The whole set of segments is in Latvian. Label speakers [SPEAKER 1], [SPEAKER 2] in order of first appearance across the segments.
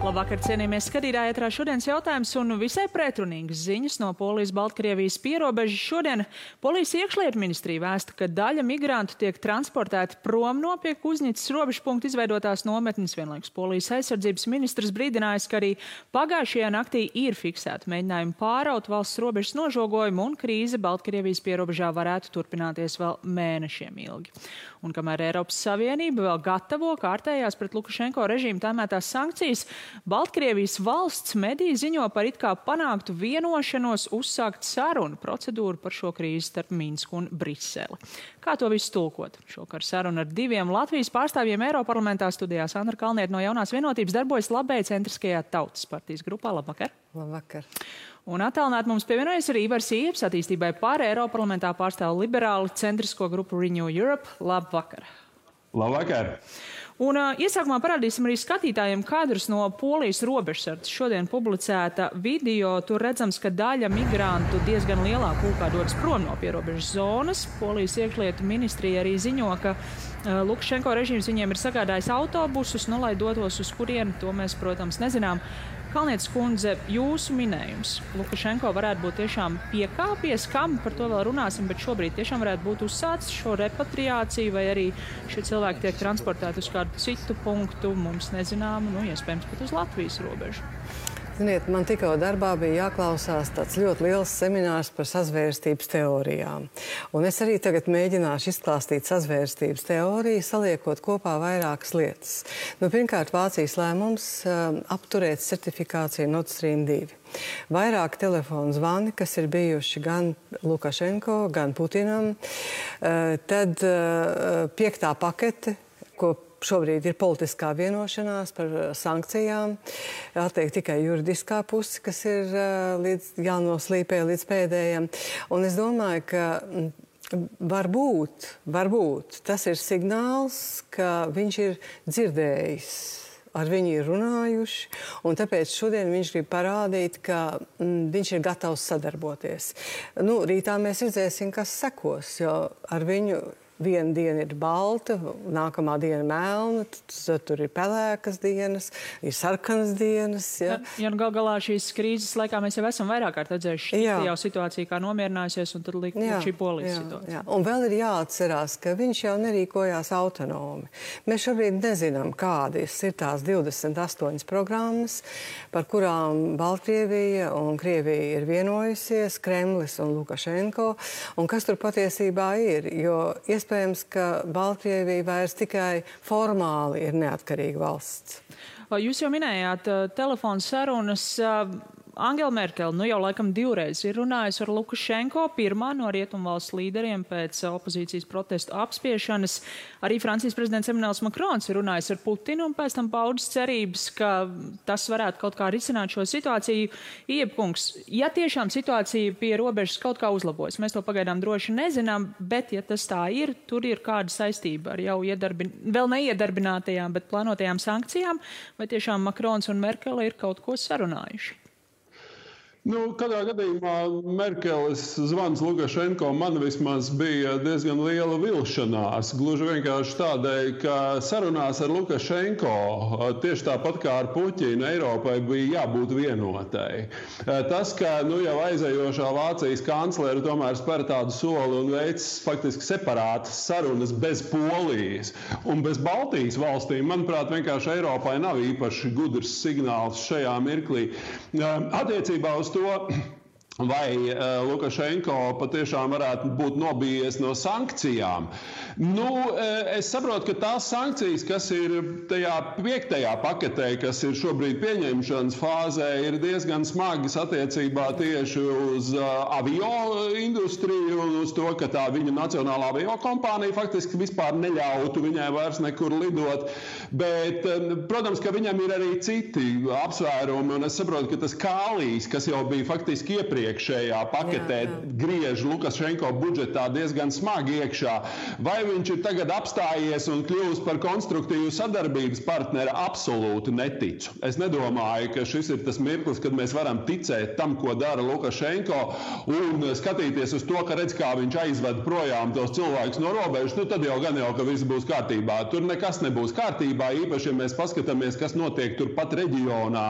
[SPEAKER 1] Labvakar, cienījamies skatītāji, ētrā šodienas jautājums un visai pretrunīgas ziņas no Polijas-Baltkrievijas pierobežas. Šodien Polijas iekšlietu ministrija vēsta, ka daļa migrantu tiek transportēti prom no pie Kuznīcas robežpunkta izveidotās nometnes. Vienlaikus Polijas aizsardzības ministrs brīdinājis, ka arī pagājušajā naktī ir fiksēti mēģinājumi pāraut valsts robežas nožogojumu un krīze Baltkrievijas pierobežā varētu turpināties vēl mēnešiem ilgi. Un kamēr Eiropas Savienība vēl gatavo kārtējās pret Lukašenko režīmu tēmētās sankcijas, Baltkrievijas valsts mediji ziņo par it kā panāktu vienošanos uzsākt sarunu procedūru par šo krīzi starp Minsku un Briseli. Kā to visu tulkot? Šokar saruna ar diviem Latvijas pārstāvjiem Eiroparlamentā studijā. Sandra Kalniete no Jaunās vienotības darbojas Labēja centriskajā Tautas partijas grupā. Labvakar!
[SPEAKER 2] Labvakar!
[SPEAKER 1] Un attālināt mums pievienojas arī Ivars Ieps, attīstībai pār Eiroparlamentā pārstāv liberāli centrisko grupu Renew Europe. Labvakar!
[SPEAKER 3] Labvakar!
[SPEAKER 1] Un iesākumā parādīsim arī skatītājiem kadrus no Polijas robežsardzes. Šodien publicēta video, tur redzams, ka daļa migrantu diezgan lielā pulkā dodas prom no pierobežas zonas. Polijas iekšlietu ministrija arī ziņo, ka Lukašenko režīms viņiem ir sagādājis autobusus, lai dotos uz kurieni, to mēs, protams, nezinām. Kalnietes kundze, jūsu minējums. Lukašenko varētu būt tiešām piekāpies, kam par to vēl runāsim, bet šobrīd tiešām varētu būt uzsācis šo repatriāciju, vai arī šie cilvēki tiek transportēti uz kādu citu punktu, mums nezināmu, iespējams pat uz Latvijas robežu.
[SPEAKER 2] Ziniet, man tikko darbā bija jāklausās tāds ļoti liels seminārs par sazvērstības teorijām. Un es arī tagad mēģināšu izklāstīt sazvērstības teoriju, saliekot kopā vairākas lietas. Pirmkārt, Vācijas lēmums apturēt certifikāciju Nord Stream 2. Vairāk telefonu zvani, kas ir bijuši gan Lukašenko, gan Putinam. Tad 5. pakete, ko šobrīd ir politiskā vienošanās par sankcijām. Atliek tikai juridiskā puse, kas ir jānoslīpē līdz pēdējiem. Un es domāju, ka varbūt tas ir signāls, ka viņš ir dzirdējis, ar viņu ir runājuši, un tāpēc šodien viņš grib parādīt, ka viņš ir gatavs sadarboties. Rītā mēs redzēsim, kas sekos, jo ar viņu viena diena ir balta, nākamā diena melna, tad tur ir pelēkas dienas, ir sarkanas dienas. Ja,
[SPEAKER 1] gal galā šīs krīzes laikā mēs jau esam vairāk kārt redzējuši jau situāciju, kā nomierinājusies, un tad liek šī Polijas situācija.
[SPEAKER 2] Jā. Un vēl ir jāatcerās, ka viņš jau nerīkojās autonomi. Mēs šobrīd nezinām, kādas ir tās 28 programmas, par kurām Baltkrievija un Krievija ir vienojusies, Kremlis un Lukašenko, un kas tur patiesībā ir, jo iespējams, ka Baltkrievija vairs tikai formāli ir neatkarīga valsts.
[SPEAKER 1] Jūs jau minējāt telefonu sarunas. Angela Merkele jau laikam 2 reizes ir runājusi ar Lukašenko, pirmā no rietumvalsts līderiem pēc opozīcijas protestu apspiešanas. Arī Francijas prezidents Emmanuels Macrons ir runājis ar Putinu un pēc tam paudis cerības, ka tas varētu kaut kā risināt šo situāciju. Iepkungs, ja tiešām situācija pie robežas kaut kā uzlabojas, mēs to pagaidām droši nezinām, bet ja tas tā ir, tur ir kāda saistība ar jau vēl neiedarbinātajām, bet plānotajām sankcijām, vai tiešām Macrons un Merkele ir kaut ko sarunājuši?
[SPEAKER 3] Kādā gadījumā Merkeles zvans Lukašenko man vismaz bija diezgan liela vilšanās. Gluži vienkārši tādēļ, ka sarunās ar Lukašenko, tieši tāpat kā ar Puķinu, Eiropai bija jābūt vienotai. Tas, ka jau aizējošā Vācijas kanclere tomēr spēr tādu soli un veic faktiski separātas sarunas bez Polijas un bez Baltijas valstīm, manuprāt, vienkārši Eiropai nav īpaši gudrs signāls šajā mirklī. Attiecībā uz to, vai Lukašenko patiešām varētu būt nobijies no sankcijām. Es saprotu, ka tās sankcijas, kas ir tajā 5. paketē, kas ir šobrīd pieņemšanas fāzē, ir diezgan smagas attiecībā tieši uz avio industriju un uz to, ka tā viņa nacionālā avio kompānija faktiski vispār neļautu viņai vairs nekur lidot. Bet, protams, ka viņam ir arī citi apsvērumi, un es saprotu, ka tas kālijs, kas jau bija faktiski iepriekš iepriekšējā paketē griež Lukašenko budžetā diezgan smagi iekšā. Vai viņš ir tagad apstājies un kļūst par konstruktīvu sadarbības partneri? Absolūti neticu. Es nedomāju, ka šis ir tas mirklis, kad mēs varam ticēt tam, ko dara Lukašenko, un skatīties uz to, ka redz, kā viņš aizved projām tos cilvēkus no robežas, tad jau gan jau, ka viss būs kārtībā. Tur nekas nebūs kārtībā, īpaši, ja mēs paskatāmies, kas notiek turpat reģionā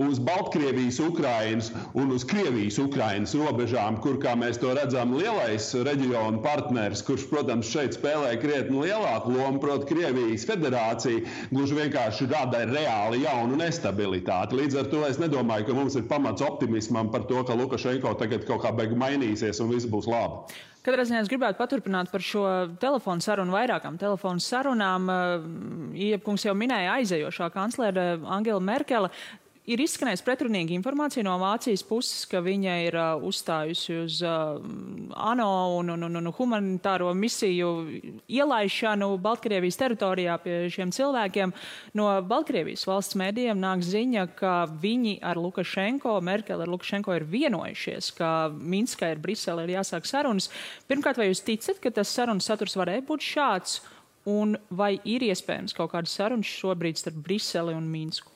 [SPEAKER 3] uz Baltkrievijas, Ukrainas un uz Krievijas-Ukrainas robežām, kur, kā mēs to redzam, lielais reģionu partners, kurš, protams, šeit spēlē krietni lielāku lomu, proti Krievijas federācija, gluži vienkārši rada reāli jaunu nestabilitāti. Līdz ar to es nedomāju, ka mums ir pamats optimismam par to, ka Lukašenko tagad kaut kā beig mainīsies un viss būs labi.
[SPEAKER 1] Katrā ziņā es gribētu paturpināt par šo telefonu sarunu, vairākām telefonu sarunām. Iepkungs jau minēja aizejošā kanclere Angela Merkele. Ir izskanējis pretrunīga informācija no Vācijas puses, ka viņa ir uzstājusi uz ANO un humanitāro misiju ielaišanu Baltkrievijas teritorijā pie šiem cilvēkiem. No Baltkrievijas valsts mēdījiem nāk ziņa, ka viņi ar Lukašenko, Merkele ar Lukašenko ir vienojušies, ka Minskā ir Brisele ir jāsāk sarunas. Pirmkārt, vai jūs ticat, ka tas sarunas saturs varēja būt šāds? Un vai ir iespējams kaut kādas sarunas šobrīd starp Briseli un Minsku?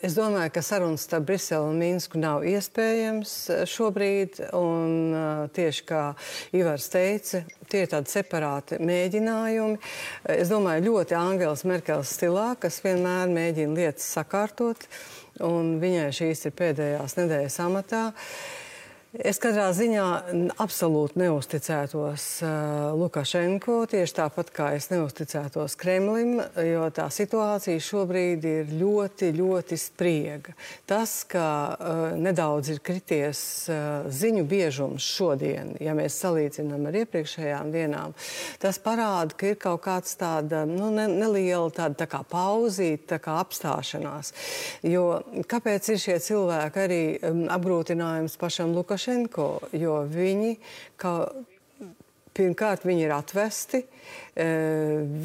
[SPEAKER 2] Es domāju, ka sarunas starp Briseli un Minsku nav iespējams šobrīd, un tieši kā Ivars teica, tie ir tādi separāti mēģinājumi. Es domāju, ļoti Angelas Merkeles stilā, kas vienmēr mēģina lietas sakārtot, un viņai šīs ir pēdējās nedēļas amatā. Es katrā ziņā absolūti neusticētos Lukašenko, tieši tāpat kā es neusticētos Kremlim, jo tā situācija šobrīd ir ļoti, ļoti spriega. Tas, ka nedaudz ir krities ziņu biežums šodien, ja mēs salīdzinām ar iepriekšējām dienām, tas parāda, ka ir kaut kāds tāda neliela tāda tā kā pauzīte, tā kā apstāšanās. Jo kāpēc ir šie cilvēki arī apgrūtinājums pašam Lukašenko? Jo viņi, pirmkārt, viņi ir atvesti,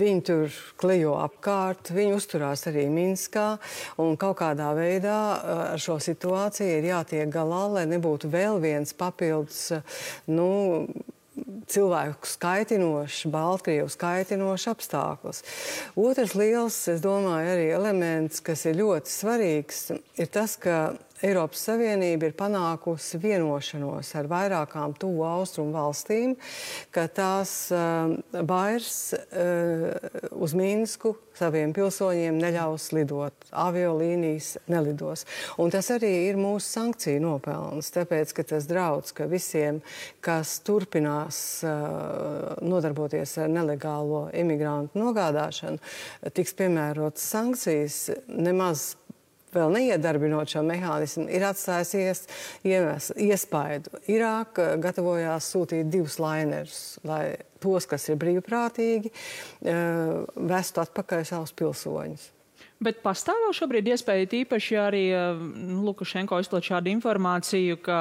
[SPEAKER 2] viņi tur klejo apkārt, viņi uzturās arī Minskā, un kaut kādā veidā ar šo situāciju ir jātiek galā, lai nebūtu vēl viens papildus, cilvēku skaitinošs, Baltkrievu skaitinošs apstākļus. Otrs liels, es domāju, arī elements, kas ir ļoti svarīgs, ir tas, ka Eiropas Savienība ir panākusi vienošanos ar vairākām tuvu austrumu valstīm, ka tās vairs uz Minsku saviem pilsoņiem neļaus lidot, aviolīnijas nelidos. Un tas arī ir mūsu sankciju nopelns, tāpēc, ka tas draudz, ka visiem, kas turpinās nodarboties ar nelegālo imigrantu nogādāšanu, tiks piemērotas sankcijas, nemaz vēl neiedarbinot šo mehānismu, ir atstājusies iespaidu. Irāka gatavojās sūtīt 2 lainerus, lai tos, kas ir brīvprātīgi, vestu atpakaļ savus pilsoņus.
[SPEAKER 1] Bet pastāv vēl šobrīd iespēja tīpaši arī Lukašenko izplat šādu informāciju, ka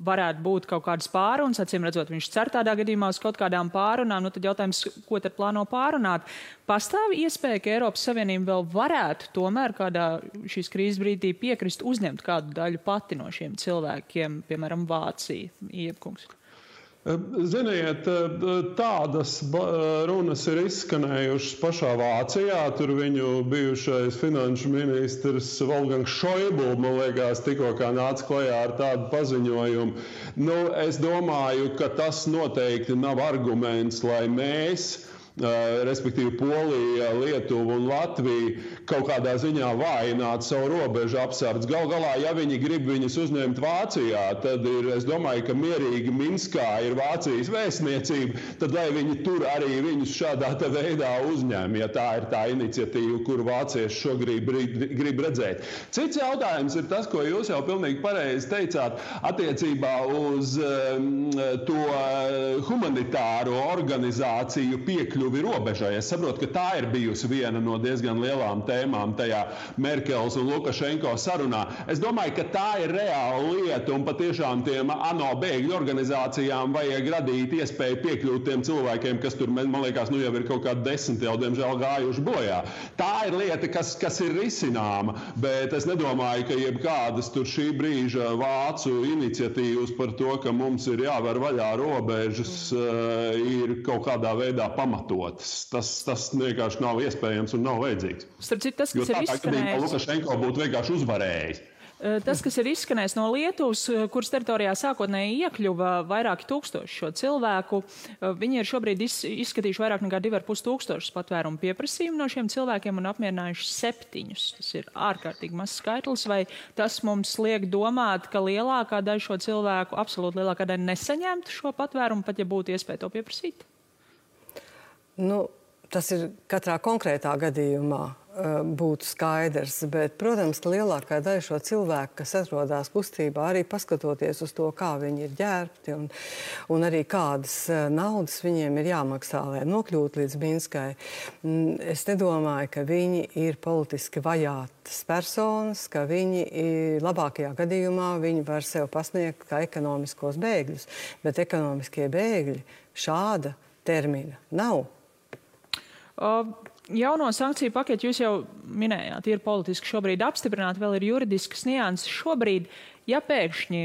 [SPEAKER 1] varētu būt kaut kādas pārunas, acīm redzot, viņš cer tādā gadījumā uz kaut kādām pārunām, tad jautājums, ko tad plāno pārunāt. Pastāv iespēja, ka Eiropas Savienība vēl varētu tomēr kādā šīs krīzes brīdī piekrist uzņemt kādu daļu pati no šiem cilvēkiem, piemēram, Vācija, Iepkungs?
[SPEAKER 3] Ziniet, tādas runas ir izskanējušas pašā Vācijā. Tur viņu bijušais finanšu ministrs Wolfgangs Schäuble, man liekas, tikko kā nāca klajā ar tādu paziņojumu. Es domāju, ka tas noteikti nav arguments, lai mēs, respektīvi Polija, Lietuva un Latvija, kaut kādā ziņā vājināt savu robežu apsardz. Gal galā, ja viņi grib viņus uzņemt Vācijā, tad ir, es domāju, ka mierīgi Minskā ir Vācijas vēstniecība, tad lai viņi tur arī viņus šādā veidā uzņem, ja tā ir tā iniciatīva, kuru vācieši šobrīd grib redzēt. Cits jautājums ir tas, ko jūs jau pilnīgi pareizi teicāt, attiecībā uz to humanitāro organizāciju piekļuvi piekļuvi robežai. Es saprotu, ka tā ir bijusi viena no diezgan lielām tēmām tajā Merkeles un Lukašenko sarunā. Es domāju, ka tā ir reāla lieta, un patiešām tiem ANO bēgļu organizācijām vajag radīt iespēju piekļūt tiem cilvēkiem, kas tur, man liekas, jau ir kaut kādi 10 jau, diemžēl, gājuši bojā. Tā ir lieta, kas ir risināma, bet es nedomāju, ka jebkādas tur šī brīža vācu iniciatīvas par to, ka mums ir jāver vaļā robežas, ir kaut kādā veidā pamatotas. Tas vienkārši nav iespējams un nav vajadzīgs.
[SPEAKER 1] Starp citu, tas, kas ir izskanējis,
[SPEAKER 3] Lukašenko būtu vienkārši uzvarējis.
[SPEAKER 1] Tas, kas ir izskanējis no Lietuvas, kuras teritorijā sākotnēji iekļuva vairāki tūkstoši šo cilvēku, viņi ir šobrīd izskatījuši vairāk nekā 2,5 tūkstošus patvērumu pieprasījumu no šiem cilvēkiem un apmierinājuši 7. Tas ir ārkārtīgi mazs skaitlis, vai tas mums liek domāt, ka lielākā daļa šo cilvēku, absolūti lielākā daļa nesaņemtu šo patvērumu, pat ja būtu iespēja to pieprasīt?
[SPEAKER 2] Tas ir katrā konkrētā gadījumā būtu skaidrs, bet, protams, ka lielākā daļa šo cilvēku, kas atrodas kustībā, arī paskatoties uz to, kā viņi ir ģērbti un arī kādas naudas viņiem ir jāmaksā, lai nokļūtu līdz Minskai. Es nedomāju, ka viņi ir politiski vajātas personas, ka viņi labākajā gadījumā viņi var sev pasniegt kā ekonomiskos bēgļus, bet ekonomiskie bēgļi šāda termina nav.
[SPEAKER 1] Jauno sankciju paketi jūs jau minējāt, ir politiski šobrīd apstiprināti, vēl ir juridiskas nianses. Šobrīd, ja pēkšņi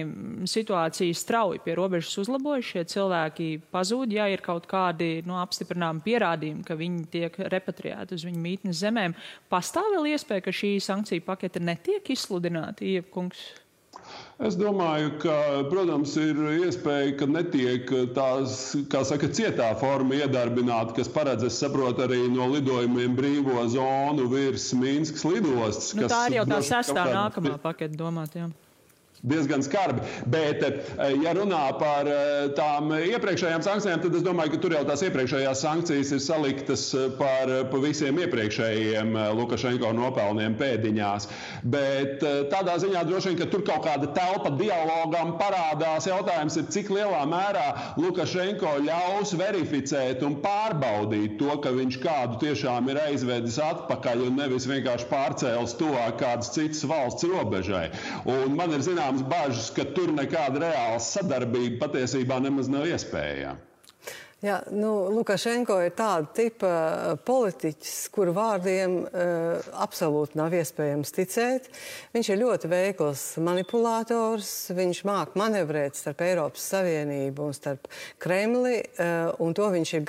[SPEAKER 1] situācija strauji pie robežas uzlabojas, šie cilvēki pazūd, ja ir kaut kādi apstiprināmi pierādījumi, ka viņi tiek repatriēti uz viņu mītnes zemēm, pastāv vēl iespēja, ka šī sankciju pakete netiek izsludināta, Ievkungs?
[SPEAKER 3] Es domāju, ka, protams, ir iespēja, ka netiek tās, kā saka, cietā forma iedarbināta, kas paredz, es saprotu, arī no lidojumiem brīvo zonu virs Minskas lidostas.
[SPEAKER 1] Tā ir jau tā 6. nākamā paketa domāt, jā.
[SPEAKER 3] Diezgan skarbi, bet, ja runā par tām iepriekšējām sankcijām, tad es domāju, ka tur jau tās iepriekšējās sankcijas ir saliktas par visiem iepriekšējiem Lukašenko nopelniem pēdiņās. Bet tādā ziņā droši vien, ka tur kaut kāda telpa dialogam parādās. Jautājums ir, cik lielā mērā Lukašenko ļaus verificēt un pārbaudīt to, ka viņš kādu tiešām ir aizvedis atpakaļ un nevis vienkārši pārcēlis tuvāk kādas citas valsts robežai. Un man ir bažas, ka tur nekāda reāla sadarbība patiesībā nemaz nav iespējama.
[SPEAKER 2] Jā, Lukašenko ir tāda tipa politiķis, kuru vārdiem absolūti nav iespējams ticēt. Viņš ir ļoti veikls manipulātors, viņš māk manevrēt starp Eiropas Savienību un starp Kremli, un to viņš ir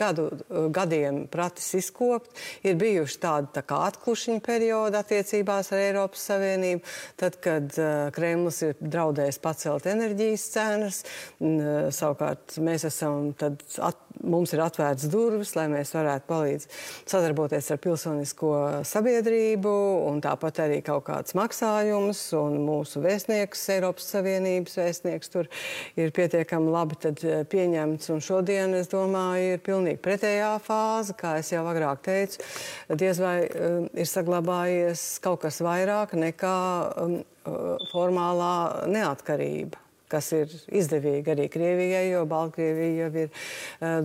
[SPEAKER 2] gadiem pratis izkopt. Ir bijuši tādi tā kā atklušiņa periodi attiecībās ar Eiropas Savienību, tad, kad Kremlis ir draudējis pacelt enerģijas cenas, savukārt mēs esam mums ir atvērts durvis, lai mēs varētu palīdz sadarboties ar pilsonisko sabiedrību un tāpat arī kaut kāds maksājums un mūsu vēstnieks, Eiropas Savienības vēstnieks tur ir pietiekami labi tad pieņemts. Un šodien, es domāju, ir pilnīgi pretējā fāze, kā es jau agrāk teicu, diez vai ir saglabājies kaut kas vairāk nekā formālā neatkarība, kas ir izdevīgi arī Krievijai, jo Baltkrievija jau ir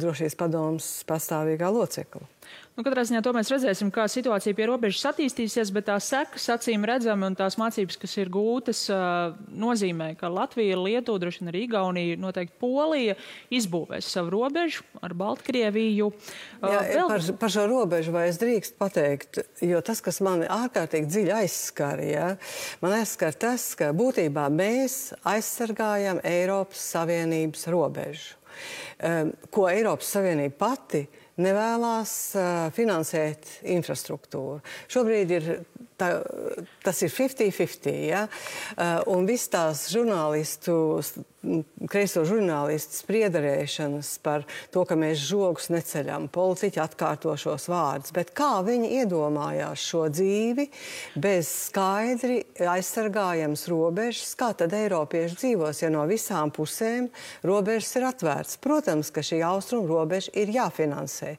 [SPEAKER 2] drošības padomes pastāvīgā locekla.
[SPEAKER 1] Katrā ziņā to mēs redzēsim, kā situācija pie robežas attīstīsies, bet tās sekas acīm redzami un tās mācības, kas ir gūtas, nozīmē, ka Latvija, Lietuva, droši vien arī Igaunija, noteikti Polija izbūvēs savu robežu ar Baltkrieviju.
[SPEAKER 2] Par šo robežu vai es drīkst pateikt, jo tas, kas mani ārkārtīgi dziļi aizskar, man aizskar tas, ka būtībā mēs aizsargājam Eiropas Savienības robežu, ko Eiropas Savienība pati nevēlās finansēt infrastruktūru. Šobrīd tas ir 50-50, un viss tās kreiso žurnālistu spriedarēšanas par to, ka mēs žogus neceļam, politiķi atkārto šos vārdus, bet kā viņi iedomājās šo dzīvi bez skaidri aizsargājams robežas, kā tad eiropieši dzīvos, ja no visām pusēm robežas ir atvērts. Protams, ka šī austrumu robeža ir jāfinansē.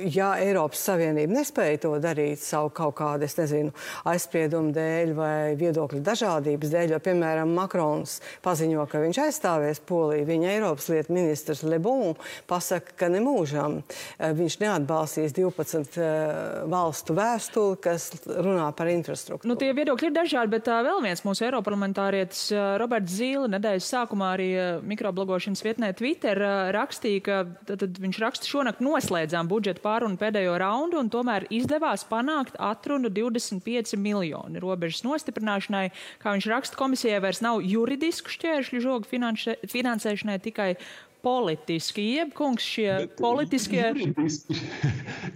[SPEAKER 2] Ja Eiropas Savienība nespēja to darīt savu kaut kādu, nezinu, aizspriedumu dēļ vai viedokļu dažādības dēļ, jo, piemēram, Makrons paziņo, ka viņš aizstāvēs Poliju. Viņa Eiropas lietu ministrs Le Bon pasaka, ka nemūžam viņš neatbalstīs 12 valstu vēstuli, kas runā par infrastruktūru.
[SPEAKER 1] Nu, tie viedokļi ir dažādi, bet vēl viens mūsu eiroparlamentārietis Roberts Zīle nedēļas sākumā arī mikroblogošanas vietnē Twitter rakstīja, ka tad viņš raksta šonakt noslēdzām budžeta pārunu pēdējo raundu un tomēr izdevās panākt atrunu 25 miljoni robežas nostiprināšanai. Kā viņš raksta, komisijai vairs nav juridisku šķēršļu žogu finansēšanai, tikai politiski, jeb kungs šie politiskie...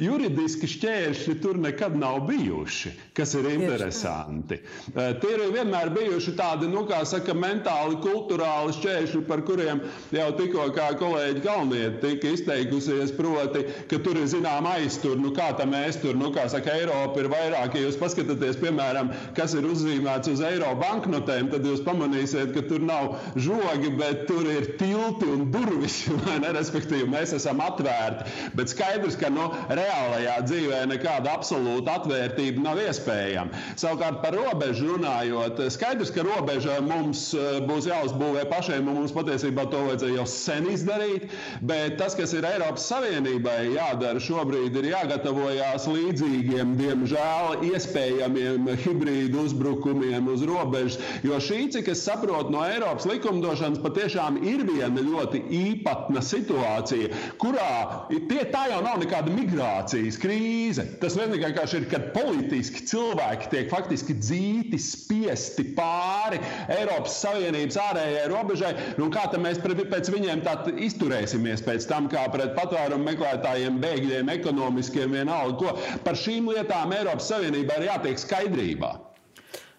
[SPEAKER 3] Juridiski šķēršļi tur nekad nav bijuši, kas ir interesanti. Tie ir vienmēr bijuši tādi, kā saka, mentāli, kulturāli šķēršļi, par kuriem jau tikko kā kolēģi Kalniete tika izteikusies, proti, ka tur ir zinām aiztur, kā tam aiztur, kā saka, Eiropa ir vairāk. Ja jūs paskatāties, piemēram, kas ir uzzīmēts uz eiro banknotēm, tad jūs pamanīsiet, ka tur nav žogi, bet tur ir tilti un durvis. Respektīvi, mēs esam atvērti, bet skaidrs, ka reālajā dzīvē nekāda absolūta atvērtība nav iespējama. Savukārt par robežu runājot, skaidrs, ka robeža mums būs jāuzbūvē pašiem, un mums patiesībā to vajadzēja jau sen izdarīt, bet tas, kas ir Eiropas Savienībai jādara šobrīd, ir jāgatavojās līdzīgiem, diemžēl, iespējamiem hibrīdu uzbrukumiem uz robežas, jo šī, cik es saprotu no Eiropas likumdošanas, patiešām ir viena ļoti īpatna situācija, kurā tā jau nav nekāda migrācijas krīze. Tas vienkārši ir, kad politiski cilvēki tiek faktiski dzīti, spiesti pāri Eiropas Savienības ārējai robežai, kā tad mēs pēc viņiem tā izturēsimies pēc tam, kā pret patvērumu meklētājiem, bēgļiem, ekonomiskiem vienalga, ko par šīm lietām Eiropas Savienībā ir jātiek skaidrībā.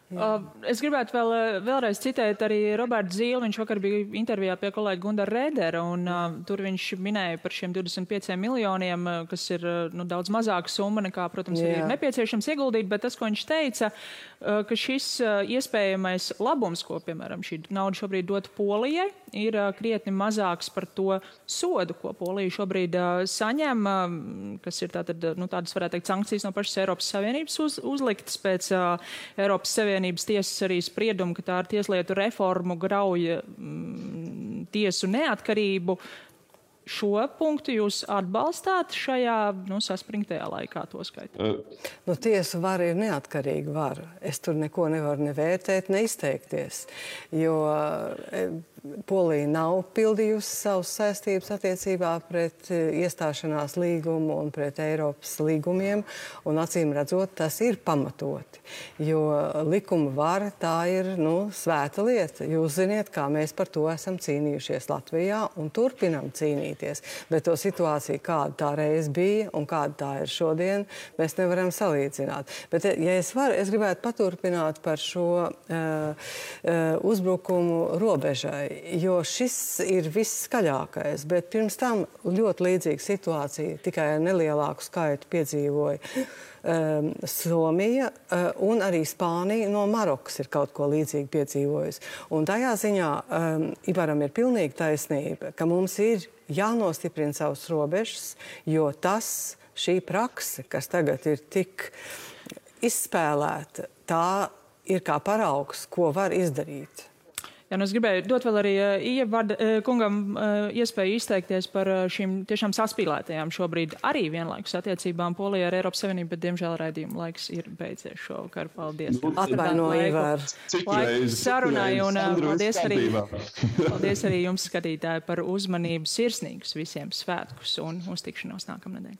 [SPEAKER 1] Es gribētu vēlreiz citēt arī Robertu Zīli. Viņš vakar bija intervijā pie kolēģa Gundara Rēdera, un tur viņš minēja par šiem 25 miljoniem, kas ir daudz mazāka summa nekā, protams, arī ir nepieciešams ieguldīt, bet tas, ko viņš teica, ka šis iespējamais labums, ko, piemēram, šī nauda šobrīd dot Polijai, ir krietni mazāks par to sodu, ko Polija šobrīd saņem, kas ir tādas, varētu teikt, sankcijas no pašas Eiropas Savienības uzliktas pēc Eiropas Savienības tiesas arī spriedumu, ka tā ar tieslietu reformu grauja tiesu neatkarību. Šo punktu jūs atbalstāt šajā saspringtajā laikā, to skaitot?
[SPEAKER 2] Tiesu vara ir neatkarīga vara. Es tur neko nevaru nevērtēt, neizteikties, jo Polija nav pildījusi savas saistības attiecībā pret iestāšanās līgumu un pret Eiropas līgumiem, un acīm redzot, tas ir pamatoti, jo likuma vara tā ir, svēta lieta. Jūs ziniet, kā mēs par to esam cīnījušies Latvijā un turpinam cīnīties, bet to situāciju, kāda tā reiz bija un kāda tā ir šodien, mēs nevaram salīdzināt. Bet, ja es gribētu paturpināt par šo uzbrukumu robežai, jo šis ir visskaļākais, bet pirms tam ļoti līdzīga situācija, tikai ar nelielāku skaitu piedzīvoja Somija un arī Spānija no Marokas ir kaut ko līdzīgi piedzīvojusi. Un tajā ziņā Ivaram ir pilnīgi taisnība, ka mums ir jānostiprina savas robežas, jo šī prakse, kas tagad ir tik izspēlēta, tā ir kā paraugs, ko var izdarīt.
[SPEAKER 1] Jā, es gribēju dot vēl arī kungam iespēju izteikties par šīm tiešām saspīlētajām šobrīd arī vienlaikus attiecībām Polijā ar Eiropas Savienību, bet diemžēl raidījuma laiks ir beidzies šovakar. Paldies.
[SPEAKER 2] Atvainoju, Ivar.
[SPEAKER 1] Laiks sarunai un paldies arī jums, skatītāji, par uzmanību, sirsnīgus visiem svētkus un uz tikšanos nākamnedēļ.